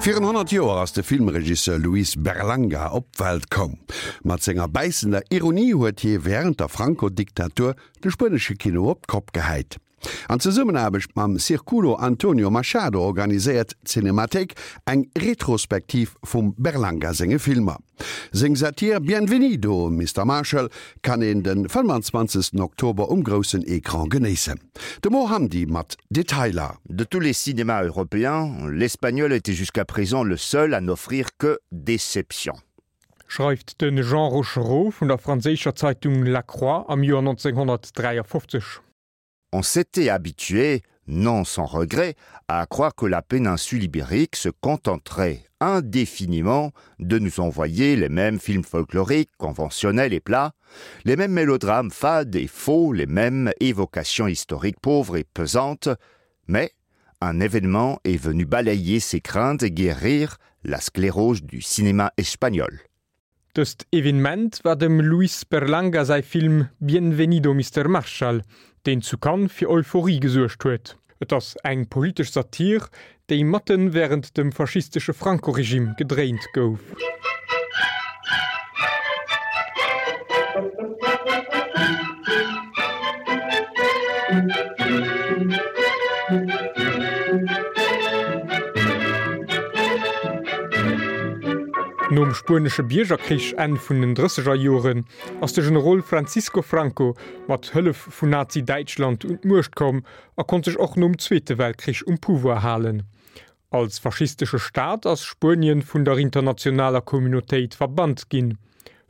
Virun 100 Joer ass de Filmregisseur Luis Berlanga op d'Welt koum. Mat senger bäissender Ironie huet hie wärend der Franco-Diktatur de spuenesche Kino op d'Kopp gehäit. An Zesummenaarbecht mam Circulo Antonio Machado organiséiert d'Cinemathéik eng Retrospektiv vum Berlanga senge Filmer. Seng Satir Bienvenido, Mister Marshall kann een de 25 Oktober um groussen Ecran genéissen. De Mo Hamdi mat Detailer. De tous les cinémas européens, l'espagnol était jusqu'à présent le seul à n'offrir que déception. Schreift de Jean Rochereau vun der franséischer Zeitung La Croix am Joer 1953. On s'était habitué, non sans regret, à croire que la péninsule ibérique se contenterait indéfiniment de nous envoyer les mêmes films folkloriques, conventionnels et plats, les mêmes mélodrames fades et faux, les mêmes évocations historiques pauvres et pesantes, mais un événement est venu balayer ses craintes et guérir la sclérose du cinéma espagnol. Dëst Evenement war dem Luis Berlanga säi Film Bienvenido Mister Marshall, deen zu Cannes fir Euphorie gesuergt huet. Et ass eng politesch Satir, déi matten wärend dem faschistesche Franco-Regime gedréint gouf. Nom spuenesche Biergerkrich Enn vun den drësseger Joren ass de Generol Francisco Franco mat Hëllef vun Nazi-Däitschland un d'Muecht komm a konnt sech och nom Zweete Weltkrich um Pouvoir halen. Als faschistesche Staat ass Spuenien vun der internationaler Communautéit verbannt ginn.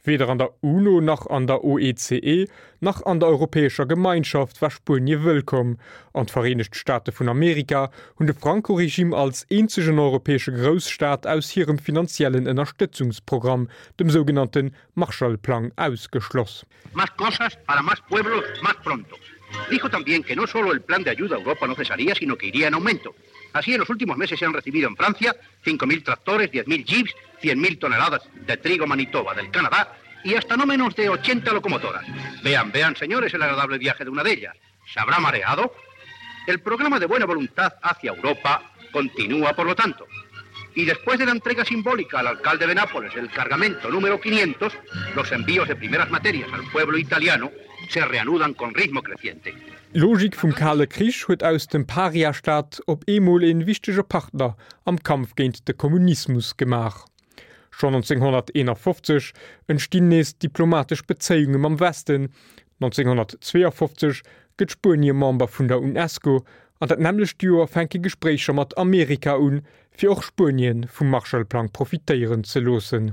Weder an der UNO nach an der OECE nach an der Europäescher Gemeinschaft war Spuenie wëllkomm, an d'Vereenegt Staate vun Amerika hunn de Franco-Regime als eenzegen europäesche Grousstaat aus hirem finanziellen Ënnerstëtzungsprogramm, dem sougenannte Marshall-Plang, ausgeschloss. Más cosas para más pueblos más pronto. Dijo también que no solo el plan de ayuda a Europa no cesaría, sino que iría en aumento. Así, en los últimos meses se han recibido en Francia 5.000 tractores, 10.000 jeeps, 100.000 toneladas de trigo Manitoba del Canadá y hasta no menos de 80 locomotoras. Vean, vean, señores, el agradable viaje de una de ellas. ¿Se habrá mareado? El programa de buena voluntad hacia Europa continúa, por lo tanto. Y después de la entrega simbólica al alcalde de Nápoles del cargamento número 500, los envíos de primeras materias al pueblo italiano se reanudan con ritmo creciente. D'Logik vum Kale Krich huet aus dem Paria-Staat op eemol een wichtege Partner am Kampf géint de Kommunismus gemaach. Schonn 1951 entstinn nees diplomatesch Bezéiunge mam Westen, 1952 gëtt Spuenie Member vun der UNESCO an dat nämmlecht Joer fänke Gespréicher mat Amerika un, fir och Spuenien vum Marshallplang profitéieren ze loossen.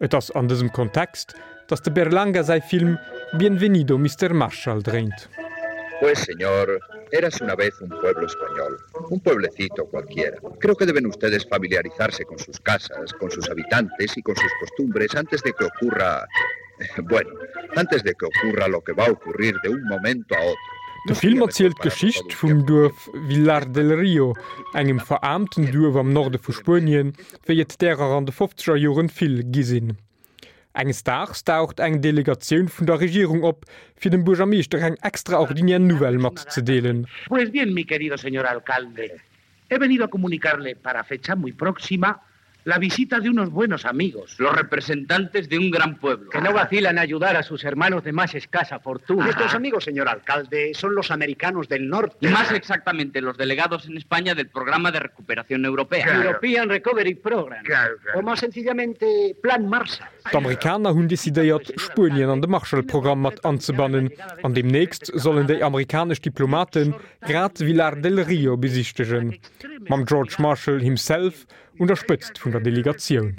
Et ass an dësem Kontext, datt de Berlanga säi Film Bienvenido Mister Marshall dréint. Pues señor, érase una vez un pueblo español, un pueblecito cualquiera. Creo que deben ustedes familiarizarse con sus casas, con sus habitantes y con sus costumbres antes de que ocurra... Bueno, antes de que ocurra lo que va a ocurrir de un momento a otro. De Film erzielt d'Geschicht vum Duerf Villar del Rio, engem veraarmten Duerf am Norde vu Spuenien, wéi et därer an de fofzeger Joren vill gi sinn. Enges Daags daucht eng Delegatioun vun der Regierung op, fir dem Buergermeeschter eng extraordinär Nouvelle matzedeelen. Pues bien, mi querido señor alcalde, he venido a comunicarle para fecha muy próxima la visita de unos buenos amigos. Los representantes de un gran pueblo. Que no vacilan a ayudar a sus hermanos de más escasa fortuna. Nuestros amigos, señor alcalde, son los americanos del norte. Más exactamente, los delegados en España del Programa de Recuperación Europea. Claro. European Recovery Program. Claro, claro. O más sencillamente, Plan Marshall. D'Amerikaner hunn decidéiert, Spuenien an de Marshall-Programm mat anzebannen, an deemnächst sollen déi amerikanesch Diplomate grad Villar del Rio besichtegen, mam George Marshall himself un der Spëtzt vun der Delegatioun.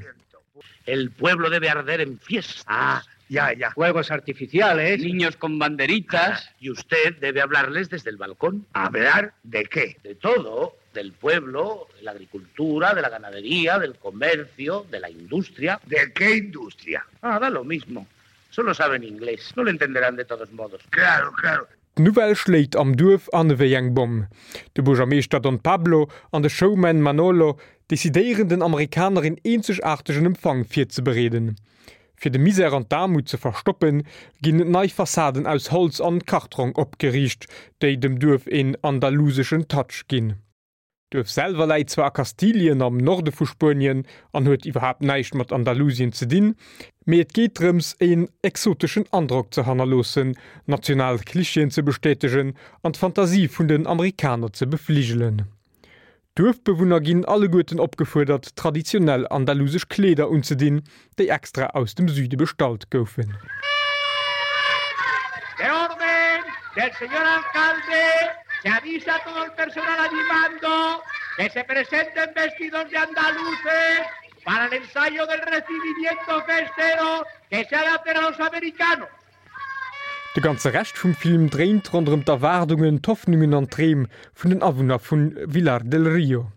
El pueblo debe arder en fiestas. Ah, ya, ya. Fuegos artificiales. Niños con banderitas. Ah, y usted debe hablarles desde el balcón. ¿Hablar de qué? De todo, del pueblo, de la agricultura, de la ganadería, del comercio, de la industria. ¿De qué industria? Ah, da lo mismo. Solo saben inglés. No lo entenderán de todos modos. Claro, claro. D'Nouvelle schléit am Duerf an ewéi eng Bomm. De Buergermeeschter Don Pablo an de Showman Manolo decidéieren den Amerikaner een eenzegaartegen Empfang virzebereeden. Fir de Misär an d'Aarmut ze verstoppen, ginn nei Fassaden aus Holz an Kartrong opgeriicht, déi dem Duerf een andaluseschen Touch ginn. D'Duerf selwer läit zwar a Kastilien am Norde vu Spuenien an huet iwwerhaapt näischt mat Andalusien ze dinn, mee et geet drëms een exoteschen Androck ze hannerloossen, national Klischeeën ze bestätegen an d'Fantasie vun den Amerikaner ze befligelen. D'Duerfbewunner ginn alleguerten opgefuerdert traditionell andalusesch Kleeder unzedinn, déi extra aus dem Süde bestallt goufen. De orden del señor alcalde se avisa a todo el personal a mi mando que se presenten vestidos de andaluces para el ensayo del recibimiento festero que se ha de hacer a los americanos. De ganze Rescht vum Film dréint ronderëm d'Erwaardungen, d'Hoffnungen an d'Dreem vun den Awunner vu Villar del Rio.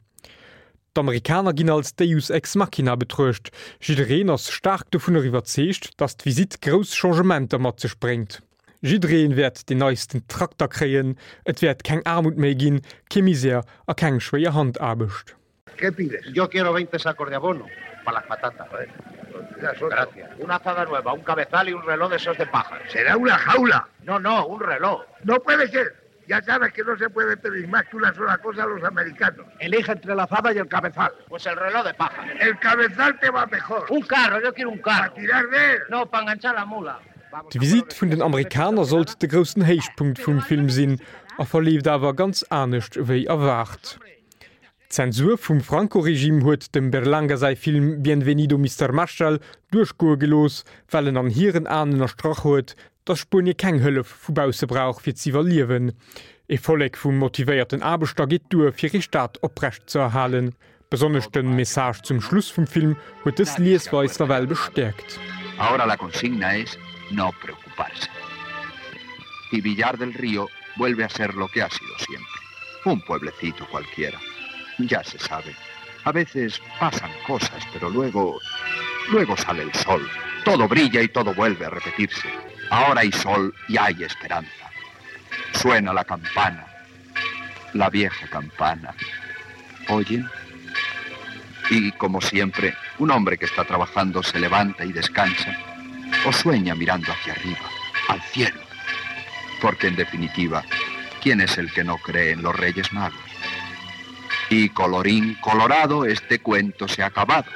D'Amerikaner ginn als Deus ex machina betruecht, jiddereen ass staark dovunner iwwerzeegt, datt d'Visitt grouss Changementer mat sech bréngt. Jiddereen wäert deen neisten Trakter kréien, et wäert keng Aarmut méi ginn, kee Misär a keng schwéier Handaarbecht. ¿Qué pides? Yo quiero 20 sacos de abono para las patatas. Gracias. Una azada nueva, un cabezal y un reloj de esos de paja. Será una jaula. No, no, un reloj. No puede ser. Ya sabes que no se puede pedir más que una sola cosa a los americanos. Elige entre la azada y el cabezal. Pues el reloj de paja. El cabezal te va mejor. Un carro, yo quiero un carro. ¿Para tirar de él? No, para enganchar la mula. D'Visitt vun den Amerikaner sollt de groussen Héichpunkt vum Film sinn a verleeft awer ganz anescht ewéi erwaart. D'Zensur vum Franco-Regime huet dem Berlanga säi Film Bienvenido Mister Marshall duerchgoe gelooss, well en an hiren Aen ënnerstrach huet, datt Spuenie keng Hëllef vu bausse brauch fir z'iwwerliewen. Ee Vollek vu motivéierten Aarbechter geet duer fir ee Staat oprecht ze erhalen. Besonnesch de Message zum Schluss vum Film huet dës Liesweis nawell bestäerkt. Ahora la consigna es no preocuparse. Y Villar del Río vuelve a ser lo que ha sido siempre. Un pueblecito cualquiera. Ya se sabe. A veces pasan cosas, pero luego... Luego sale el sol. Todo brilla y todo vuelve a repetirse. Ahora hay sol y hay esperanza. Suena la campana. La vieja campana. ¿Oyen? Y, como siempre, un hombre que está trabajando se levanta y descansa o sueña mirando hacia arriba, al cielo. Porque, en definitiva, ¿quién es el que no cree en los Reyes Magos? Y colorín colorado, este cuento se ha acabado.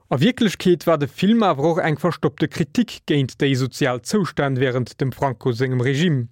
A Wierklechkeet war de Film awer och eng verstoppte Kritik géint déi sozial Zoustänn wärend dem Franco sengem Regime.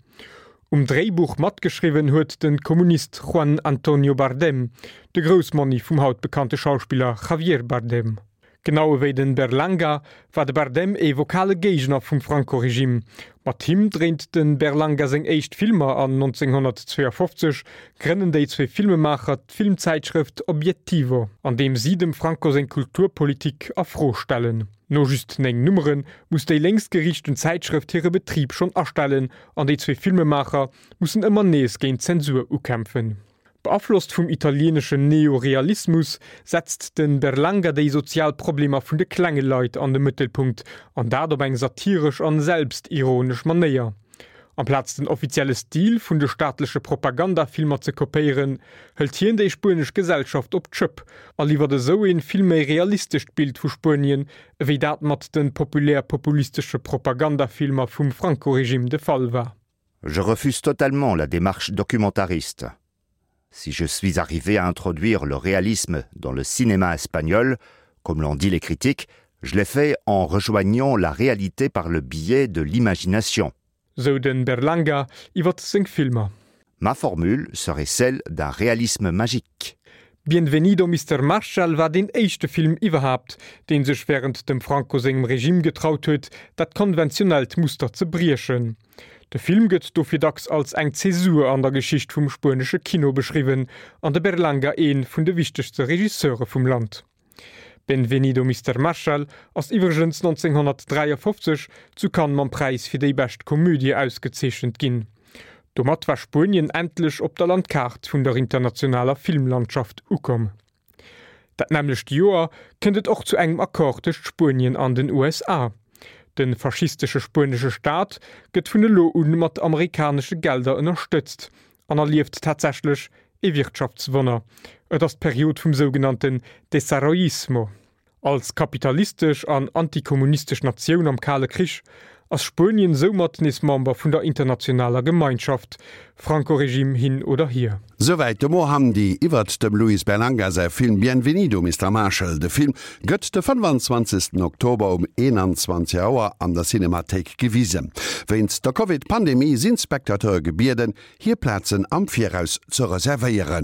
Um Dréibuch matgeschriwwen huet de Kommunist Juan Antonio Bardem, de Groussmonni vum haut bekannte Schauspiller Javier Bardem. Genau ewéi den Berlanga war de Bardem ee vokale Géigner vum Franco-Regime. Mat him dréint de Berlanga seng éischt Filmer an 1952 grënnen déi zwee Filmemaacher d'Filmzäitschrëft Obiettivo, an deem si dem Franco seng Kulturpolitik a Fro stellen. No just 9 Nummere muss déi lénksgeriichten Zäitschrëft hire Betrib schonn astellen an déi zwee Filmemaacher mussen ëmmer nees géint d'Zensur ukämpfen. Beaflosst vum italieeneschen Neorealismus setzt de Berlanga déi sozial Problemer vun de klenge Leit an de Mëttelpunkt, an dat op eng satiresch an selbstironesch Manéier. Amplaz den offizielle Stil vun de staatleche Propagandafilmer ze kopéieren, hëlt hien déi spuenesch Gesellschaft op d'Schëpp a liwwert esou een vill méi realistescht Bild vu Spuenien, ewéi dat mat de populär-populistesche Propagandafilmer vum Franco-Regime de Fall war. Je refuse totalement la démarche documentariste. Si je suis arrivé à introduire le réalisme dans le cinéma espagnol, comme l'ont dit les critiques, je l'ai fait en rejoignant la réalité par le biais de l'imagination. Sou de Berlanga iwwer seng Filmer. Ma formule serait celle d'un réalisme magique. Bienvenido Mister Marshall war deen éischte Film iwwerhaapt, dee sech wärend dem Franco sengem Regime getraut huet, dat konventionellt Muster ze briechen. De Film gëtt dofir dacks als eng Zäsur an der Geschicht vum spuenesche Kino beschriwwen an de Berlanga ee vun de wichtegste Regisseure vum Land. Benvenido Mister Marshall ass iwwregens 1953 zu Cannes mam Präis fir déi bescht Komödie ausgezeechent ginn. Domat war Spuenien endlech op der Landkaart vun der internationaler Filmlandschaft ukomm. Dat nämmlecht Joer kënnt et och zu engem Accord tëscht Spuenien an den USA. De faschistesche spuenesche Staat gëtt vun elo un mat amerikanesche Gelder ënnerstëtzt an erlieft tatsächlech ee Wirtschaftswonner. Et ass d'Period vum sougenannten Desarrollismo. Als kapitalistesch an antikommunistesch Natioun am Kale Krich. ass Spuenien soumat nees Member vun der internationaler Gemeinschaft, Franco-Regime hin oder hier. Souwäit de Mo Hamdi iwwert dem Luis Berlanga säi Film Bienvenido Mister Marshall. De Film gëtt de 25 Oktober um 21 Auer an der Cinemathéik gewisen. Wéinst der Covid-Pandemie sinn d'Spectateure gebieden, hir Plazen am Viraus ze reservéieren.